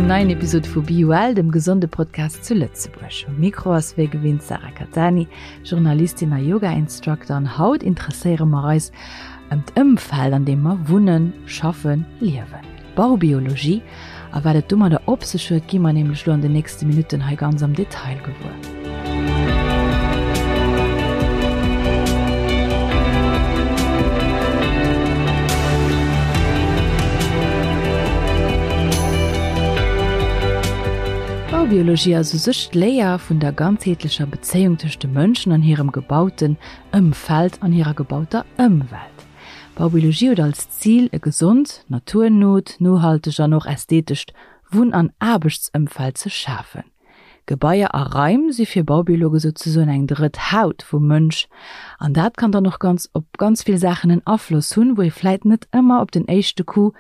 engem neien Episod vu BeWell, dem gesonde Podcast zu Lëtzebuerg. Um Mikro ass wéi gewinnt d'Sarah Cattani, Journalistin a Yoga-Instructor an haut interesséiere mer eis ëm d'Ëmfeld an deem mer wunnen, schaffen, liewen. Baubiologie a wat et domadder op sech huet, gi mer nämlech lo an den nächste Minutten hei ganz am Detail gewuer. Baubiologie ass u sech d'Léier vun der ganzheetlecher Bezéiung tëscht de Mënschen an hirem gebauten Ëmfeld an hirer gebauter Ëmwelt. Baubiologie huet als Zil, e gesond, naturnot, nohalteg an och ästhetescht Wunn an Aarbechtsëmfeld ze schafen. Gebaier a Raim si fir Baubiologe souzesoen eng drëtt Haut vum Mënsch an dat kann dann och ganz op ganz vill Saachen en Afloss hunn, wou ee vläit net ëmmer op den éischte Coup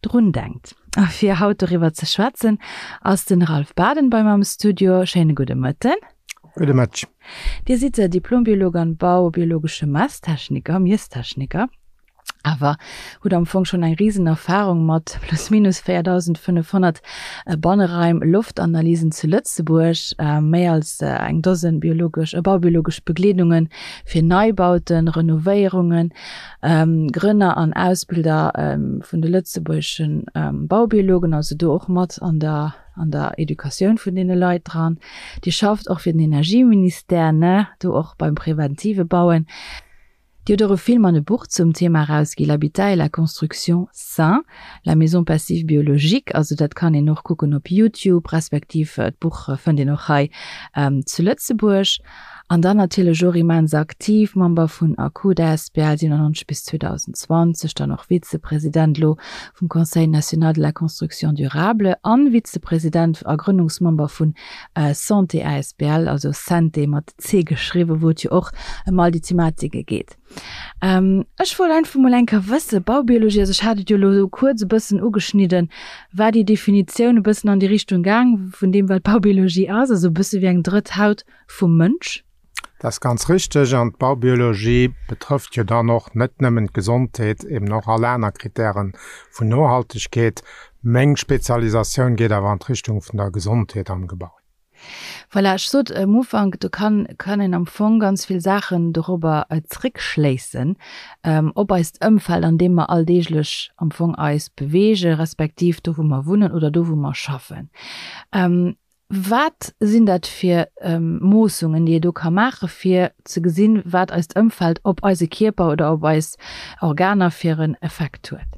drun denkt. A fir haut doriwwer ze schwätzen, ass den Ralph Baden bei mer am Studio. Schéine gudde Mëtten. Gudde Mëtteg. Dir sidd Diplombiolog an baubiologesche Messtechniker, Miesstechniker, awer hutt am Fong schonn eng risen Erfahrung mat plus minus 4.500 Banneraim-Loftanalysen zu Lëtzebuerg, méi als eng Dosen biologesch, baubiologesch Begleedunge fir Neibauten, Renovéierungen, Grënner an Ausbilder vun de lëtzebuergesche Baubiologen, also do och mat an der an der Educatioun vun deene Leit dran. Dir schafft och fir den Energieministère, ne, do och beim preventive Bauen. Dir hutt och e Film an e Buch zum Thema erausgi, L'habitat et la construction sain, la maison passive biologique. Also dat kann een och kucken op Youtube, respektiv d'Buch fënnt een och hei zu Lëtzebuerg. An dann natierlech och immens aktiv, Member vun ACUD asbl 97 bis 2020, dann och Vizepresident elo vum Conseil national de la construction durable an Vizepresident a Grënnungsmember vun Santé asbl, also Santé mat C geschriwwen, wou et jo och ëm all déi Thematike geet. Ech wollt einfach mol eng Kéier wëssen, Baubiologie, also ech hat et jo elo esou kuerz e bëssen ugeschnidden, war déi Definitioun e bëssen an déi Richtung gaang vun deem wat Baubiologie ass, also e bësse wéi eng drëtt Haut vum Mënsch? Dat ass ganz richteg. An d'Baubiologie betrëfft jo dann och net nëmmen d'Gesondheet, eben och all aner Kritäre vun Nohaltegkeet. Meng Spezialisatioun geet awer an d'Richtung vun der Gesondheet am Gebai. Voilà, ech sot am Ufank, do kann, kann een am Fong ganz vill Saachen dorobber zréckschléissen, op eist Ëmfeld, an deem mer alldeeglech am Fong eis beweegen, respektiv do, wou mer wunnen oder do, wou mer schaffen. Wat sinn dat fir Moossungen, déi ee do ka maachen, fir ze gesinn, wat eist Ëmfeld op eise Kierper oder op eis Organer fir en Effekt huet?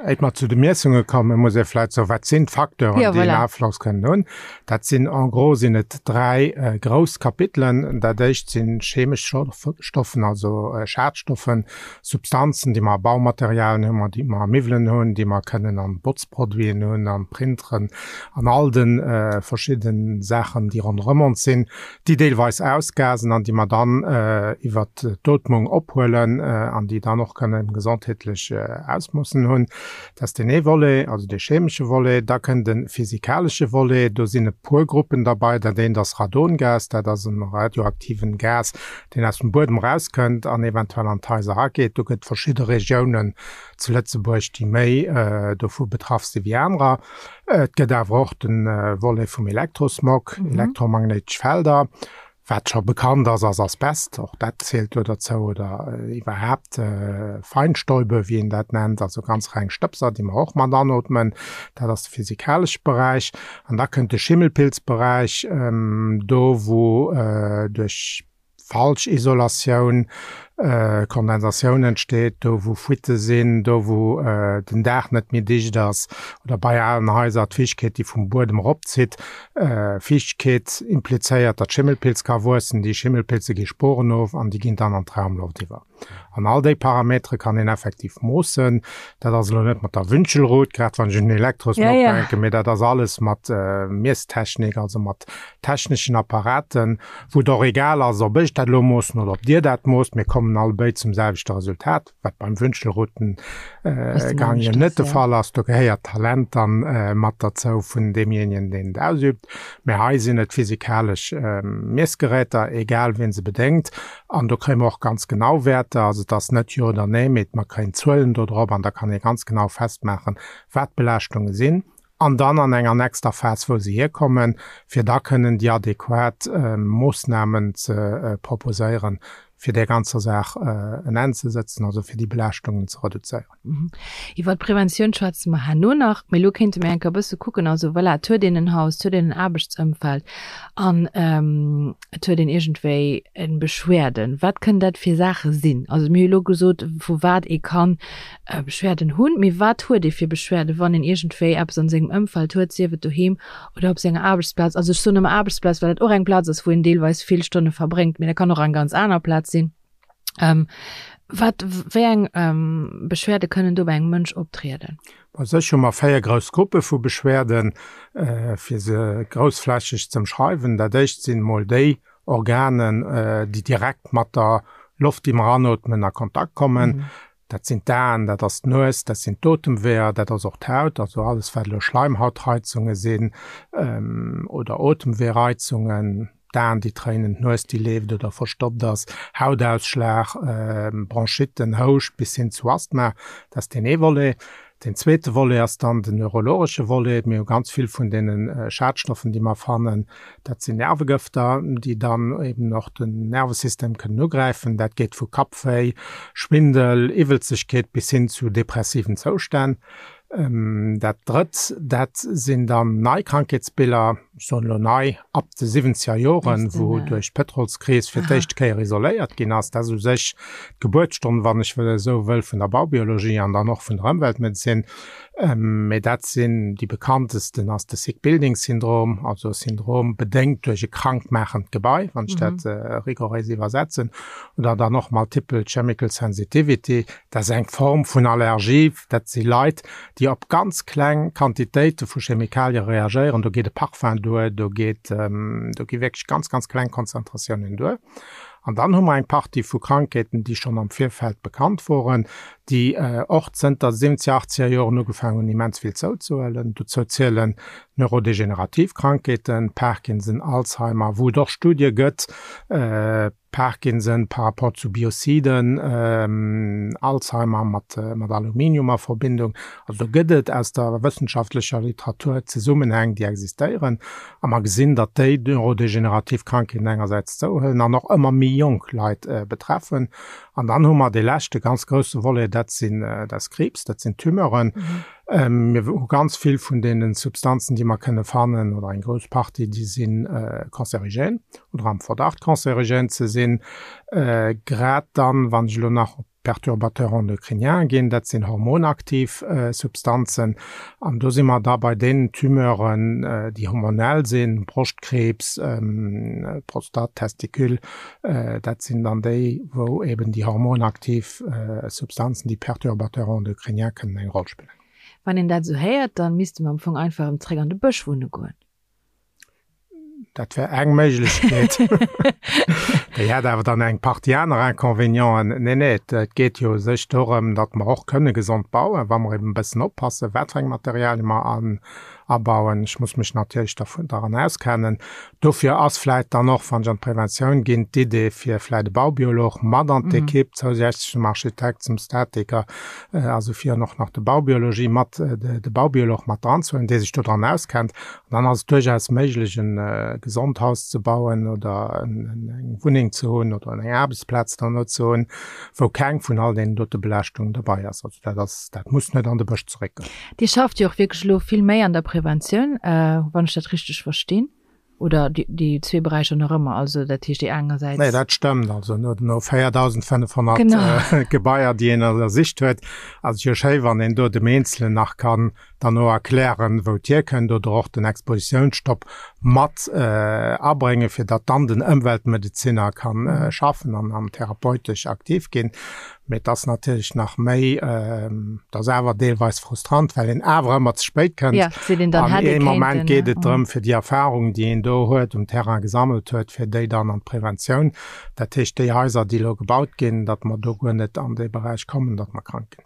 Éit mer zu de Miessunge kommen, muss ee vläicht soen, wat sinn d'Facteuren, ja, déi en Afloss kënnen hunn. Dat sinn en gros sinn et dräi äh, grouss Kapitelen. Dat éischt sinn chemesch Stoffen, also äh, Schadstoffen, Substanzen, déi mer a Baumaterialien hunn, déi mer a Miwwelen hunn, déi mer kënnen an Botzproduiten hunn, an Printeren, an all de äh, verschidden Saachen, déi ronderëm ons sinn. déi deelweis ausgasen an déi mer dann iwwert d'Ootmung ophuelen an déi dann och kënnen gesondheetlech Ausmoossen hunn. Dat ass deen ee Volet, also dee chemesche Volet. Da kënnt e physikalesche Volet. Do sinn e puer Gruppen derbei. Dat eent ass Radongas. Dat ass e radioaktiven Gas, deen aus dem Buedem erauskënnt an eventuell an d'Haiser erageet. Do gëtt verschidde Regiounen zu Lëtzebuerg, déi méi dovu betraff si wéi anerer. Et gëtt awer och de Volet vum Elektrosmog, elektromagnéitesch Felder. Wat scho bekannt ass, ass Asbest, och dat zielt do derzou, oder iwwerhaapt Feinstäube, wéi een dat nennt, also ganz reng Stëbser, déi mer och mat anootmen. Dat ass de physikalesche Beräich. An da kënnt de Schimmelpilzberäich, do wou duerch falsch Isolatioun, Kondensatioun entsteet, do wou Fuitte sinn, do wou den Daach net méi dicht ass oder bei alen Haiser d'Fiichtkeet déi vum Buedem eropzitt. Fiichtkeet implizéiert, datt Schimmelpilz ka wuessen, déi Schimmelpilze gi Sporen of an déi ginn dann an d'Raumloft iwwer. An all déi Parametere kann een effektiv moossen. Dat ass elo net mat der Wünschelrut, grad wann ech un den Elektrosmog ja, ja. denken, mee dat ass alles mat äh, Miesstechnik, also mat techneschen Apparaten, wou et och egal ass, ob ech dat elo moossen oder ob Dir dat moosst. Mir kommen. kommen allebéid zum selwechte Resultat, wat beim Wünschelroutengang jo net de Fall ass. Do gehéiert d'Talent dann mat derzou vun deemjéinegen, deen et ausübt. Mä hei sinn et physikalesch Miessgeräter, egal wien se bedéngt. An do kréie mer och ganz genau Wäerter. Also et ass net Jo oder Nee, mee mer kréien Zuelen do drop an da kann ee ganz genau festmaachen, wat d'Belaaschtunge sinn. An dann an enger nächster Phas, wou se hierkommen, fir da kënnen déi adequat Moossnamen ze proposéieren, fir där ganzer Saach en Enn ze sëtzen, also fir déi Belaaschtungen ze reduzéieren. Iwwert d'Preventioun schwätze mer herno nach, mee elo kéinte mir eng Kéier e bësse kucken, also voilà, et huet een en Haus, et huet een en Aarbechtsëmfeld an et huet een iergendwéi Beschwerden. Wat kënnen dat fir Saache sinn? Also mir hu elo gesot, vu wat ee kann Beschwerden hunn, mee wat huet ee fir Beschwerden, wann een iergendwéi eppes an sengem Ëmfeld huet, sief et doheem oder op senger Aarbechtsplaz? Also ech soen ëmmer Aarbechtsplaz, well dat och eng Plaz ass, wou een deelweis vill Stonne verbréngt, mee dat kann och eng ganz aner Plaz sinn. Wat, wéi eng Beschwerde kënnen do bei engem Mënsch optrieden? Bei sech hu mer 4 grouss Gruppe vu Beschwerden, fir se groussflächeg z'ëmschreiwen. Dat éischt sinn emol déi Organen, déi direkt mat der Loft, déi mer anootmen, a Kontakt kommen. Dat sinn d'Aen, dat ass d'Nues, dat sinn d'Otemweeër, dat ass och d'Haut, also alles wat elo Schleimhautreizunge sinn oder Otemweereizungen, d'Aen déi tréinen, d'Nues déi leeft oder verstoppt ass, Hautausschlag, Bronchitten, Houscht bis hin zu Asthma. Dat ass deen ee Volet. Deen zweete Volet ass dann den neurologesche Volet. Mir hu ganz vill vun deene Schadstoffen, déi mer fannen, dat sinn Nervegëfter, déi dann eben och den Nervesystem kënnen ugräifen. Dat geet vu Kappwéi, Schwindel, Iwwelzegkeet bis hin zu depressiven Zoustänn. Dat Drëtt, dat sinn dann nei Krankheetsbiller, ech soen elo nei, ab de siwwenzeger Joren, wou duerch d'Pëtrolskris fir d'éischt Kéier isoléiert ginn ass. Dat ass u sech d'Gebuertsstonn, wann ech wëll esou wëll, vun der Baubiologie an dann och vun der Ëmweltmedezin. Mee dat sinn déi bekanntesten ass de Sick Building Syndrom, also e Syndrom bedéngt duerch e krankmaachend Gebai, wann ech dat rigoréis iwwersetzen, oder dann och Multiple Chemical Sensitivity, dat ass eng Form vun Allergie, Dat si Leit, déi op ganz kleng Quantitéite vu Chemikalie reagéieren. Do geet e Parfum duer, do geet, do gi wierklech ganz, ganz kleng Konzentratiounen duer. An dann hu mer eng Partie vu Krankheeten, déi schonn am Virfeld bekannt woren, déi och zënter siwwenzeger, achtzeger Joren ugefaangen hunn, immens vill zouzehuelen. Dozou zielen neurodegenerativ Krankheeten, Parkinson, Alzheimer, wou et och Studie gëtt, Parkinson par rapport zu Biociden, Alzheimer mat Aluminium a Verbindung. Also do gëtt et aus der wëssenschaftlecher Literatur Zesummenhäng, déi existéieren. A mer gesinn, datt déi neurodegenerativ Krankheeten engersäits zouhuelen an och ëmmer méi jonk Leit betreffen. An dann hu mer dee leschte ganz grousse Volet, dat sinn, dat ass Kriibs, dat sinn Tumeuren. Mir hu ganz vill vun deene Substanzen, déi mer kënne fannen, oder eng grouss Partie, déi si cancerigène oder am Verdacht cancerigène ze sinn. Grad dann, wann ech elo nach op d'Perturbateurs endocriniens ginn, dat sinn hormonaktiv Substanzen, an do si mer da bei deenen Tumeuren, déi hormonell sinn, Broschtkriibs, Prostate, Testicule, dat sinn dann déi, wou eben déi hormonaktiv Substanzen, déi Perturbateurs endocriniens kënnen eng Roll spillen. Wann een dat esou héiert, dann misste mer am Fong einfach erëm zréck an de Bësch wunne goen. Dat wär eng Méiglechkeet. Déi hätt awer dann eng Partie aner Inconvénienten. Nee, nee, et geet jo u sech dorëm, datt mer och kënne gesond bauen, wa mer eben e bëssen oppassen, wat fir eng Materialie mer abauen. Ech muss mech natierlech daran auskennen. Dofir ass vläit dann och, wann ech an d'Preventioun ginn, d'Idee fir vläit e Baubiolog mat an d'Ekipp, zousätzlech zum Architekt, zum Statiker, also fir och nach de Baubiologie mat, de Baubiolog mat dran ze huelen, dee sech dodran auskennt. An dann ass et duerchaus méiglech, e gesond Haus ze bauen oder eng Wunneng ze hunn oder eng Aarbechtsplaz dann ze hunn, wou keng vun all deenen dote Belaaschtungen derbei ass. Also dat ass, dat muss net an de Bësch zeréckgoen. Dir schafft jo och wierklech elo vill méi an der Preventioun, wann ech dat richteg verstinn, oder déi zwee Beräicher nach ëmmer, also dat heescht déi engersäits. Nee, dat stëmmt. Also no 4.500 Gebaier, déi een ënnersicht huet, ass et jo schéi, wann een do dem Eenzelen nach kann. Dann och erklären, wou et hierkënnt oder och den Expositiounsstopp mat abréngen, fir datt dann den Ëmweltmedezinner ka schaffen an an therapeutesch aktiv ginn. Mee et ass natierlech nach méi, et ass awer deelweis frustrant, well een awer ëmmer ze spéit kënnt. An ee Moment geet et drëm, fir déi Erfahrung, déi een do huet, um Terrain gesammelt huet, fir déi dann an d'Preventioun, dat heescht déi Haiser, déi elo gebaut ginn, datt mer do guer net an dee Beräich kommen, datt mer krank ginn.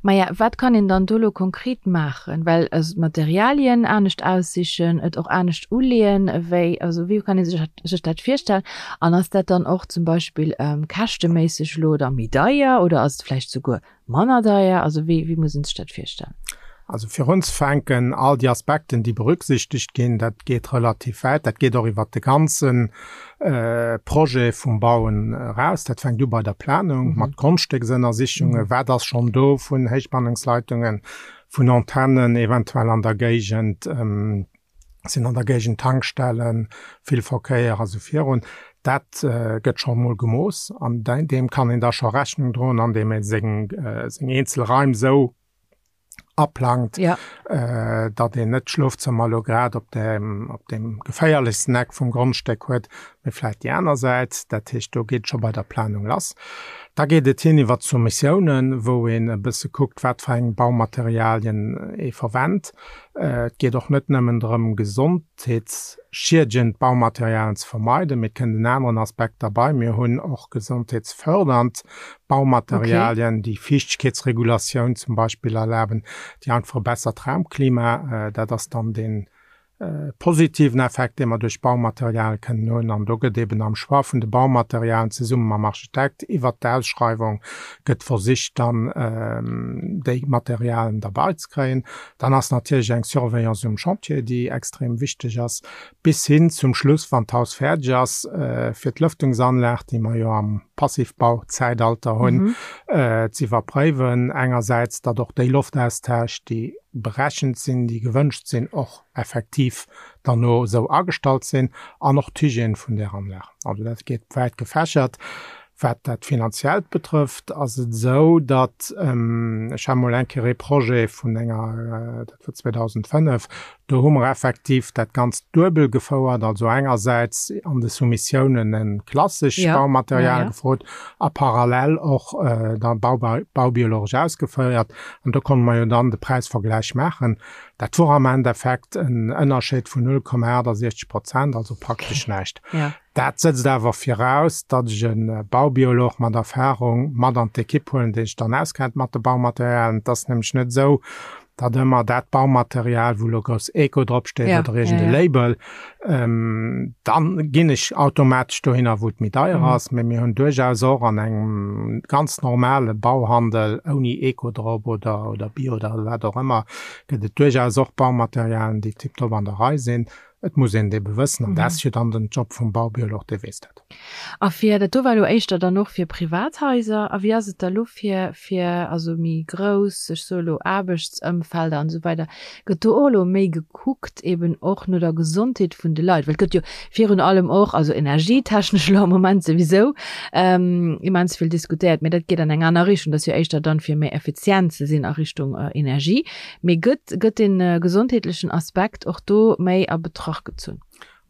Maja, wat kann een dann do elo konkret maachen? Well also d'Materialien anescht aussichen, et och anescht uleeën, wéi, also wéi kann ee sech sech dat virstellen? An ass dat dann och zum Beispill käschteméisseg elo da méi deier oder ass et vläicht souguer manner deier? Also wéi, wéi muss een sech dat virstellen? Also fir unzefänken, all déi Aspekten, déi berücksichtegt ginn, dat geet relativ wäit, dat geet och iwwert de ganze Projet vum Bauen eraus. Dat fänkt u bei der Planung mat Grondstécksënnersichungen, wat ass schonn do vun Héichspannungsleitungen, vun Antennen eventuell an der Géigend, sinn an der Géigend Tankstellen, vill Verkéier a sou virun. Dat gëtt scho mol gemooss an deem kann een da scho Rechnung droen, andeem ee seng eenzel Raim esou aplangt, ja. äh, datt een net d'Schlofzëmmer lo grad op dem, op dem geféierlechsten Eck vum Grondstéck huet, mee vläit déi aner Säit. Dat heescht, do geet scho bei der Planung lass. Da geet et hin iwwer d'Soumissiounen, wou een e bësse kuckt, wat fir eng Baumaterialien ee verwennt. Äh, et geet och net nëmmen drëm, gesondheetsschiedegend Baumaterialien ze vermeiden, mee et kënnt en aneren Aspekt derbei, Mir hunn och gesondheetsfördernd Baumaterialien, déi Fiichtegkeetsregulatioun zum Beispill erlaben, déi einfach e bessert Raumklima, dat ass dann dee positiven Effekt, dee mer duerch Baumaterial kënnen hunn. An do gëtt eben am Choix vun de Baumaterialen zesumme mam Architekt iwwert d'Ausschreiwung gëtt versicht dann déi Materialen derbei ze kréien. Dann ass natierlech eng Surveillance um Chantier, déi extrem wichteg ass. Bis hin zum Schluss, wann d'Haus fäerdeg ass, fir d'Lëftungsanlag, déi mer jo am Passivbau-Zäitalter hunn, ze iwwerpréiwen. Engersäits, datt och déi Loftaustausch, déi berechent sinn, déi gewënscht sinn, och effektiv derno esou agestallt sinn, an och d'Hygiène vun där Anlag. Also dat geet wäit gefächert. Wat dat Finanziellt betrëfft, ass et esou, datt, ech hat mol eng Kéier ee Projet vun enger, dat war 2005, do hu mer effektiv dat Ganzt duebel gefouert, also engersäits an de Soumissiounen e klassesch Baumaterial gefrot a parallel och da baubiologesch ausgeféiert. An do konnte mer jo dann de Präisvergläich maachen. Dat wor am Endeffekt en Ënnerscheed vun 0,68 Prozent, also praktesch näischt. Dat sëtzt awer viraus, datt ech e Baubiolog mat Erfahrung mat an d'Ekipp huelen, dee sech dann auskennt mat de Baumaterialien. Et ass nämlech net esou, datt ëmmer dat Baumaterial, wou elo grouss Eco drop steet oder iergend e Label, dann ginn ech automatesch dohinner, wou et méi deier ass. Mee mir hunn duerchaus och an engem ganz normale Bauhandel ouni Eco drop oder oder Bio oder wat och ëmmer, gëtt et duerchaus och Baumaterialien, déi tiptop an der Rei sinn. Et muss een et ebe wëssen, an dat ass jo dann den Job vum Baubiolog, dee weess dat. A fir, dat do war elo éischter dann och fir Privathaiser, a wéi ass et da lo fir, fir also méi grouss, ech soe lo Aarbechtsëmfelder an esou weider, gëtt do och elo méi gekuckt eben och no der Gesondheet vun de Leit? Well et gëtt jo virun allem och, also energietechnesch elo am Moment souwisou immens vill diskutéiert, mä dat geet an eng aner Richtung, dat ass jo éischter dann fir méi effizient ze sinn a Richtung Energie. Mee gëtt, gëtt dee gesondheetlechen Aspekt och do méi a Betracht gezunn?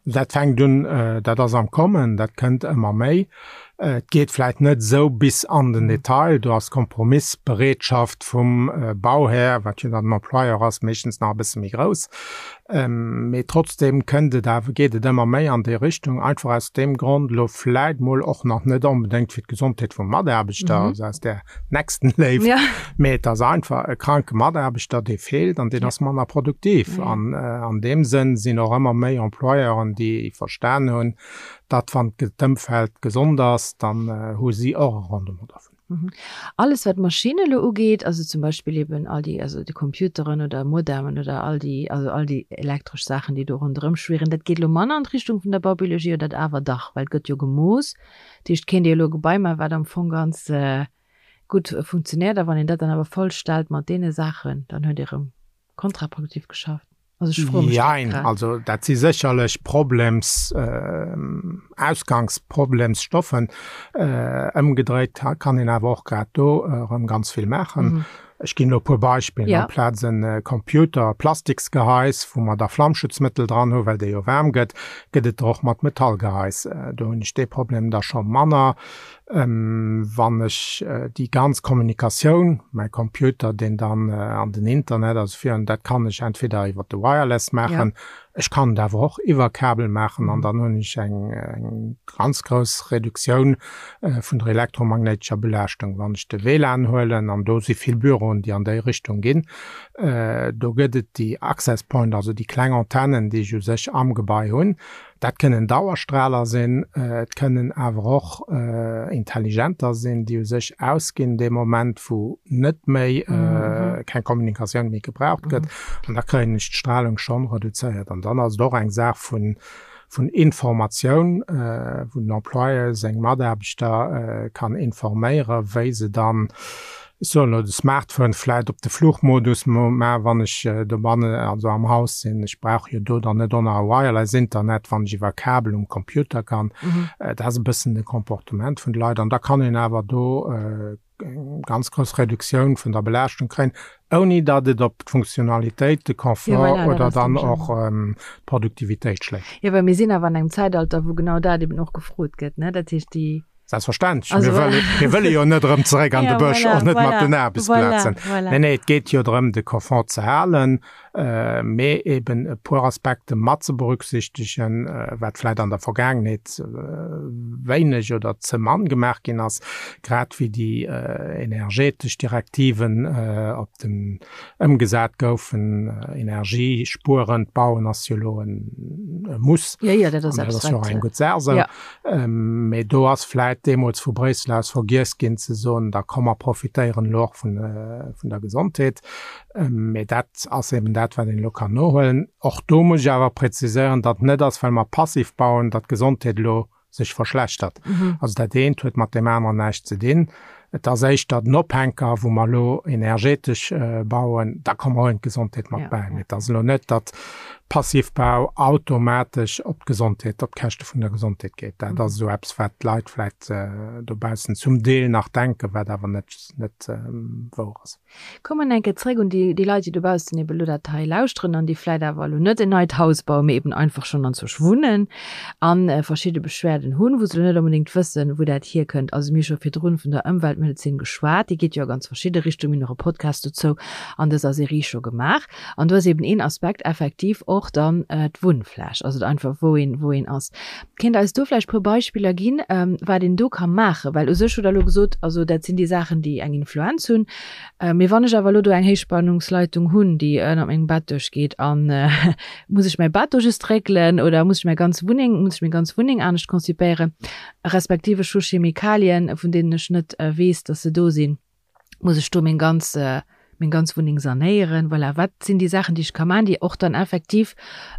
Dat fänkt un, dat ass am Kommen, dat kënnt ëmmer méi. Et geet vläicht net esou bis an den Detail, do ass d'Kompromissbereetschaft vum Bauhär, wat jo dann den Employeur ass, meeschtens nach e bësse méi grouss. Mee trotzdeem kënnt et awer, geet et ëmmer méi an déi Richtung, einfach aus deem Grond, elo vläicht mol och nach net onbedéngt fir d'Gesondheet vum Mataarbechter, also aus där Nächstenléift, ja. Mee et ass einfach e kranke Mataarbechter, dee feelt an deen ass manner produktiv. Ja. An an deem Sënn sinn och ëmmer méi Employeuren, déi verstan hunn, datt wann d'Ëmfeld gesond ass, dann hu si och e Rendement dervun. Mhm. Alles wat Maschinne elo ugeet, also zum Beispill eben all déi, also déi Computeren oder Modemen oder all déi, also all déi elektresch Saachen, déi do ronderëm schwirren, dat geet elo manner an d'Richtung vun der Baubiologie oder dat awer dach? Well et gëtt jo gemooss. Dat heescht, kéint Dir elo e Gebai maachen, wat am Fong ganz gutt funktionéiert, a wann een dat dann awer voll stellt mat deene Saachen, dann huet Dir erëm kontraproduktiv geschafft. Also ech froe mech dat Jein, grad. also dat si sécherlech Problems, Ausgangsproblemsstoffen. Ëmgedréit kann een awer och grad do erëm ganz vill maachen. Ech ginn elo e puer Beispiller, ja. Amplaz en äh, Computer Plastiksgehais, wou mer da Flammschutzmëttel dran hu, well dee jo waarm gëtt, gëtt et der och mat Metallgehais. Äh, do hunn ech dee Problem da scho manner. Ähm, wann ech äh, déi ganz Kommunikatioun, mäi Computer, deen dann äh, an den Internet, also fir, dat kann ech entweder iwwer de Wireless maachen, ja. Ech kann et awer och iwwer Kabel maachen an dann hunn ech eng, eng ganz grouss Reduktioun vun der elektromagnéitescher Belaaschtung. Wann ech de WLAN huelen, an do si vill Büroen, déi an déi Richtung ginn, do gëtt et déi Access Point, also déi kleng Antennen, déi ech u sech am Gebai hunn. Dat kënnen Dauerstrahler sinn, et kënnen awer och intelligenter sinn, déi u sech ausginn dee Moment, wou net méi, keng Kommunikatioun méi gebraucht gëtt. An da kréien ech d'Strahlung schonn reduzéiert. An dann ass et och eng Saach vun, vun Informatioun, wou den Employeur seng Mataarbechter kann informéieren, wéi se dann, ech soen elo, de Smartphone vläicht op de Flugmodus maachen, wann ech dobannen, also am Haus sinn. Ech brauch jo do dann net och nach e Wireless-Internet, wann ech iwwer Kabel um Computer kann. Dat ass e bëssen de Comportement vun de Leit. An da kann een awer do eng ganz grouss Reduktioun vun der Belaaschtung kréien, ouni datt et op d'Funktionalitéit, de Confort ja, voilà, oder dann och ähm, d'Produktivitéit schléit. Ja, well mir sinn awer an engem Zäitalter, wou genau dat eben och gefrot gëtt, ne? Dat heescht déi Selbstverständlech. Also, mir wëlle, mir wëlle jo net erëm zeréck an ja, de Bësch, voilà, och net voilà, mat den Aarbechtsplazen. Voilà, voilà. Nee, nee, et geet jo drëm, de Confort ze halen. mee eben e puer Aspekte mat ze berücksichtegen, wat vläit an der Vergaangenheet wéineg oder ze mann gemaach ginn ass, grad wéi déi energetesch Direktiven op den ëmgesat goufen. Energiespuerend bauen ass jo elo e Muss. Jo, jo, dat ass abstrakt. Dat ass jo och eng gutt Saach esou. Mee do ass vläit deemools vu Bréissel aus vergiess ginn ze soen, da komm mer profitéieren elo och vun der Gesondheet. Mee dat ass eben dat, wat een elo kann nohuelen. Och do muss ech awer präziséieren, datt net ass, well mer passiv bauen, datt d'Gesondheet elo sech verschlechtert. Also dat eent huet mat deem aneren näischt ze dinn. Et ass éischter den Ophänker, wou mer elo energetesch bauen, da komme mer och un d'Gesondheet mat bäi. Mee et ass elo net, datt Passivbau automatesch op d'Gesondheet, op d'Käschte vun der Gesondheet geet. Dat ass esou eppes, wat d'Leit vläicht dobaussen zum Deel nach denken, wat awer net, net wouer ass. Kommen eng Kéier zréck un déi, déi Leit, déi dobaussen eben elo dat hei lauschteren an déi vläit awer elo net en neit Haus bauen, mee eben einfach schonn anzwousch wunnen a verschidde Beschwerden hunn, wou se elo net onbedéngt wëssen, wou dat hierkënnt. Also mir hu scho virdrun vun der Ëmweltmedezin geschwat, déi geet jo a ganz verschidde Richtungen. Mir hunn och e Podcast dozou an dëser Serie scho gemaach. An do ass eben een Aspekt effektiv och dann d'Wunnfläch, also einfach wou een, wou een ass. Kéint Der eis do vläicht e puer Beispiller ginn, wat een do ka maachen? Well u sech hutt Der elo gesot, also dat sinn déi Saachen, déi eng Influenz hunn. Mee wann ech awer elo do eng Héichspannungsleitung hunn, déi ënner mengem Bett duerchgeet, a muss ech mäi Bett do just réckelen oder muss ech mäi ganz Wunneng, muss ech meng ganz Wunneng anescht konzipéieren, respektiv ech hu Chemikalien, vun deenen ech net weess, datt se do sinn. Muss ech do meng ganz, meng ganz Wunneng sanéieren? Voilà, wat sinn déi Saachen, déi ech ka maachen, déi och dann effektiv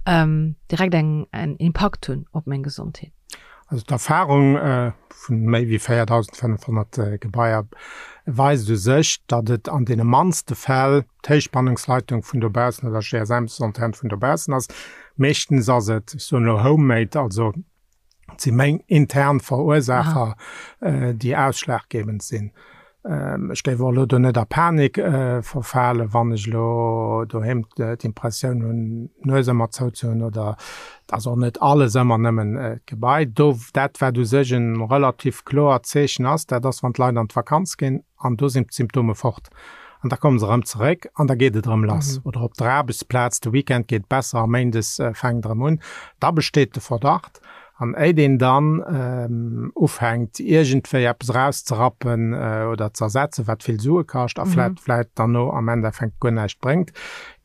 direkt eng, en Impakt hunn op meng Gesondheet? Also d'Erfahrung vun méi wéi 4.500 Gebaier weist u sech, datt et an deene mannste Fäll d'Héichspannungsleitung vun dobaussen oder GSM-Antenn vun dobaussen ass. Meeschtens ass et, ech soen elo homemade, also Et si meng intern Verursaacher, déi ausschlaggebend sinn. Ech géif och elo do net a Panik verfalen, wann ech elo doheem d'Impressioun hunn, d'Nues ëmmer zou ze hunn oder et ass och net alles ëmmer nëmmen d'Gebai. Do, dat wat u sech e relativ kloert Zeechen ass, dat ass wann d'Leit an d'Vakanz ginn an do sinn d'Symptome fort an da komme se erëm zeréck an da geet et erëm lass. Oder op der Aarbechtsplaz, de Weekend geet besser a méindes fänkt erëm un. Da besteet de Verdacht. An éit een dann ufänkt iergendwéi eppes erauszerappen oder ze ersetzen, wat vill Sue kascht a vläit vläit dann no am Endeffekt guer näischt bréngt,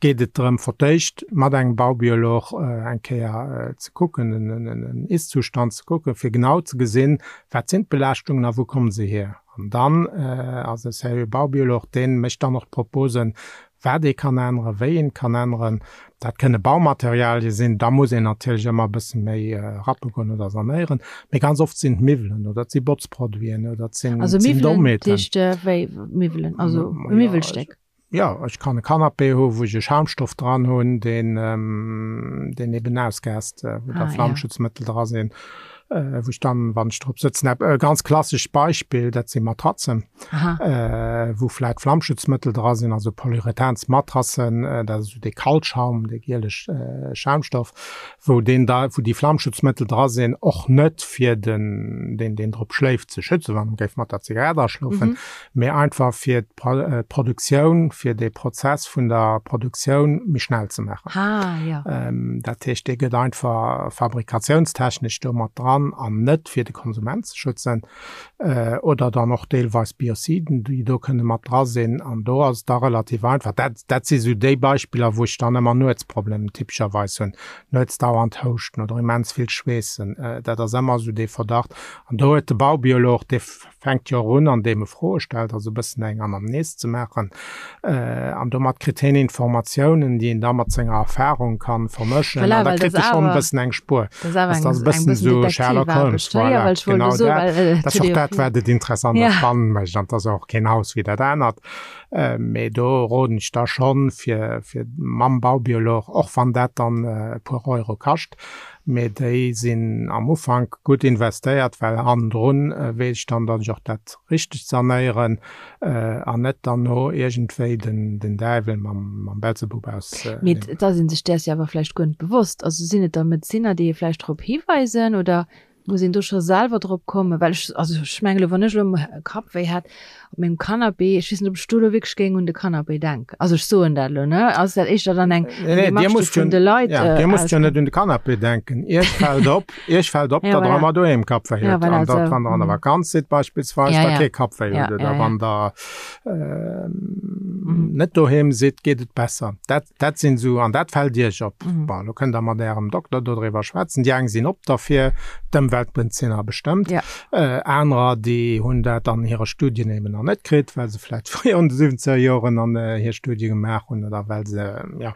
geet et drëm fir d'éischt mat engem Baubiolog eng Kéier ze kucken, en Ist-Zustand ze kucken, fir genau ze gesinn, wat sinn d'Belaaschtungen a wou komme se hier. An dann ass e seriö Baubiolog, dee mécht dann och d'Proposen, wat ee kann änneren, wéi een kann änneren. Dat kënne Baumaterialie sinn, da muss een natierlech ëmmer e bësse méi rappe goen oder sanéieren. Mee ganz oft sinn et Miwwelen oder et si Botzproduiten oder et sinn Also Miwwelen, dat Dometen. heescht wéi Miwwelen, also e Miwwelstéck? Jo, ech kann e Canapé hu wou ech e Schaumstoff dran hunn, deen, deen eben ausgaast, wou da Flammschutzmëttel dra sinn. Wou ech dann, wann ech drop sëtzen, e ganz klassescht Beispill, dat si Matratzen, wou vläit Flammschutzmëttel dra sinn, also Polyurethansmatrassen, dat ass esou dee Kaltschaum, dee gieleg Schaumstoff, wou deen da, wou déi Flammschutzmëttel dra sinn, och net fir den, deen, deen drop schléift, ze schützen, wann en géif mat der Zigarett aschlofen, mee einfach fir d'Produktioun, fir dee Prozess vun der Produktioun méi schnell ze maachen. Ah, ja. Dat heescht, dee gëtt einfach fabrikatiounstechnesch do mat dran an net fir de Konsument ze schützen. Oder dann och deelweis Biociden, déi do kënne mat dra sinn. An do ass et da relativ einfach. Dat, dat si sou déi Beispiller, wou ech dann ëmmer Nuetsproblemen typescherweis hunn. Nuets dauernd houschten oder immens vill schweessen, dat ass ëmmer esou dee Verdacht. An do huet de Baubiolog, dee fänkt jo och un, andeem e Froe stellt, also e bëssen eng Anamnes ze maachen. An domat kritt hien Informatiounen, déi en da mat senger Erfahrung ka vermëschen. Voilà, An da well kritt dat e schonn e awer, bëssen eng Spuer. dat ass awer Dat eng, ass e eng bëssen bëssen esou Sherlock Holmes, Detektivaarbecht, ne? Jo, voilà, well ech wollt genau elo soen, dat. well et Dat ass huet och ee jo dat, vill. wat et interessant a Ja. spannend mécht. An et ass och keen Haus wéi dat anert. Mee do roden ech da schonn, fir, fir mam Baubiolog, och wann dat dann e puer Euro kascht, Mee déi sinn am Ufank gutt investéiert, well hannendrun weess ech dann, datt ech och dat Richtegt sanéieren an net dann no iergendwéi den Däiwel mam Belzebub aus. Mee et ass ee sech däers jo awer vläicht guer net bewosst. Also sinn et da Medezinner, déi ee vläicht drop hiweisen oder muss een do scho selwer drop kommen? Well ech, also ech mengen elo, wann ech elo Kappwéi hätt op mengem Canapé, ech weess net, ob ech do elo wierklech géing un de Canapé denken. Also ech soen dat elo, ne? Ass dat éischter dann eng, Nee, nee, eng Dir Démarche, déi musst jo, vun de Leit ja, Dir musst jo ausgeet? net un de Canapé denken. Iech fält op, Iech fält op, Ja, datt Der voilà. ëmmer doheem Kappwéi Ja, hutt voilà, an datt, esou. wann Der an der Mhm. Vakanz sidd beispillsweis, Ja, der ja. kee Kappwéi Ja, hutt oder ja, ja. wann Der Mhm. net doheem sidd, geet et besser. Dat, Dat sinn esou, an dat fält Iech op. Mhm. Bon, elo kënnt Der mat Ärem Dokter dodriwwer schwätzen. Déi eng sinn op derfir, d'Ëmweltmedeziner bestëmmt. Ja. Anerer, déi hunn dat an hire Studien eben nach net kritt, well se vläicht fréier an de siwwenzeger Joren an hir Studie gemaach hunn oder well se, jo,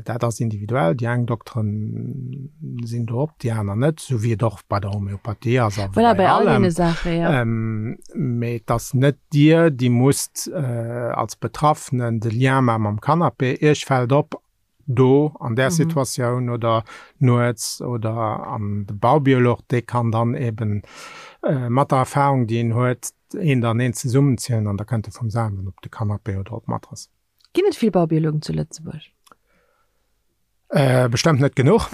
dat ass individuell. Déi eng Dokteren sinn do op, déi aner net, esou wéi et och bei der Homeopathie ass a wéi Voilà, bei bei all allem. deene Saachen, ja. Mee et ass net Dir, déi musst als Betraffenen de Lien maache mam Canapé. Iech fält op, do an där Situatioun oder nuets oder an de Baubiolog, dee kann dann eben mat der Erfahrung, déi en huet, eent an eent zesummenzielen an da kënnt e vum selwen op de Canapé oder op d'Matrass. Ginn et vill Baubiologen zu Lëtzebuerg? Bestëmmt net genuch.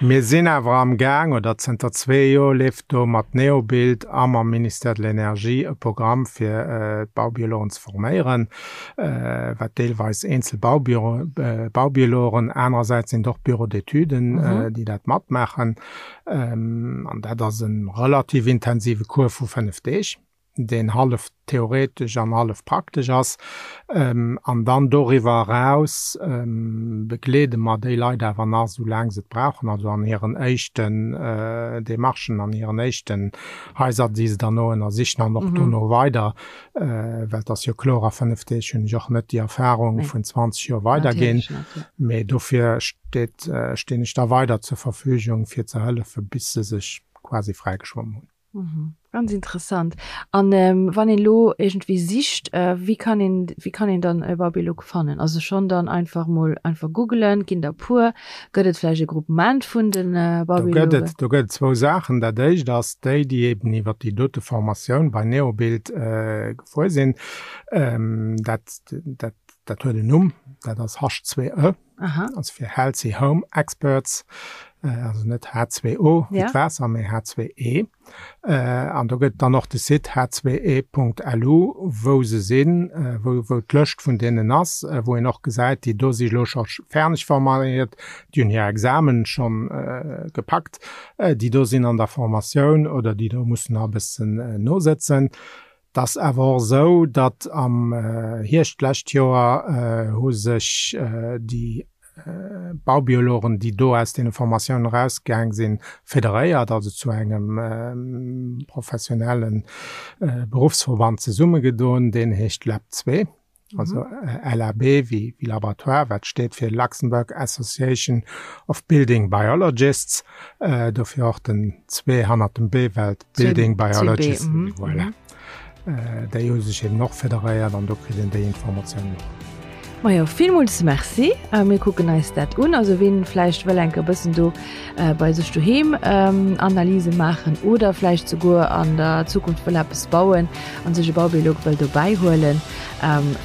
Mir sinn awer am Gaang, oder zënter zwee Joer leeft do mat Neobuild a mam Ministère de l'Énergie e Programm fir d'Baubiologen ze forméieren, wat deelweis eenzel Baubiologen, anerersäits sinn et och Bureaux d'étuden, déi dat matmaachen. An dat ass e relativ intensive Cours vu 5 Deeg. deen hallef theoretesch an hallef praktesch ass. An dann doriwwer eraus begleede mer déi Leit awer nach esou laang se et brauchen, also an hiren éischten Demarchen, an hiren éischten Haiser, déi se derno ënnersichen an och dono weider, well et ass jo kloer, a 5 Deeg hunn ech och net déi Erfahrung vun 20 Joer weiderginn. Mee dofir steet, stinn ech da weider zur Verfügung, fir ze hëllefen, bis se sech quasi fräigeschwommen hunn. Mhm. Ganz interessant. An ähm, wann een lo irgendwie sicht, äh, wéi kann een, wéi kann een dann e Babylook fannen? Also schon dann einfach mol einfach googelen, ginn der puer, gëtt et vläicht e Groupement vun den äh, Do gëtt Babylogen? et, do gëtt et zwou Saachen. Dat éischt ass déi, déi eben iwwer déi dote Formatioun bei Neobuild äh, gefuer sinn. Ähm, dat, dat, dat huet en Numm, dat ass H2E. Aha. Also fir Healthy Home Experts, also net H2O wéi Ja. d'Waasser, mee H2E. An do gëtt dann och de Site h2e.lu, wou se sinn, wou, wou d'Lëscht vun deenen ass, wou een och gesäit, déi do si elo scho fäerdeg forméiert, déi hunn hir Examen schonn gepackt, déi do sinn an der Formatioun oder déi do mussen nach e bëssen nosëtzen. Et ass awer och esou, datt am Hierscht d'lescht Joer hu sech déi Baubiologen, déi do aus deene Formatiounen erausgaang sinn, federéiert, also zu engem professionelle Beruffsverband zesummegedoen, deen heescht LAB 2. Also LAB wéi Laboratoire, wat steet fir Luxembourg Association of Building Biologists, dofir och den 2 hannert dem B, well Building Biologists, voilà. Déi hu sech eben och federéiert an do kritt een déi Informatiounen och. Majo, villmools Merci. Mir kucken eis dat un. Also wien vläicht wëll enke bëssen do bei sech doheem Analyse maachen oder vläicht souguer an der Zukunft wëll eppes bauen an sech e Baubiolog wëll dobäi huelen.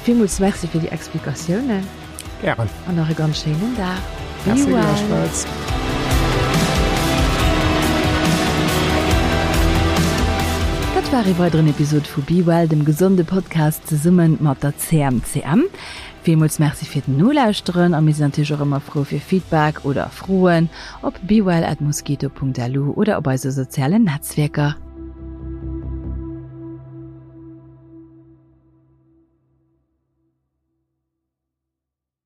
Villmools Merci fir déi Explikatiounen. Gären. An nach e ganz schéinen Dag. Merci gläichfalls. Dat war ee weideren Episod vu Be Well, dem gesonde Podcast zesumme mat der CMCM. Villmools Merci fir den Nolauschteren a mir sinn natierlech och ëmmer frou fir Feedback oder Froen op bewell@mosquito.lu oder op eise sozialen Netzwierker.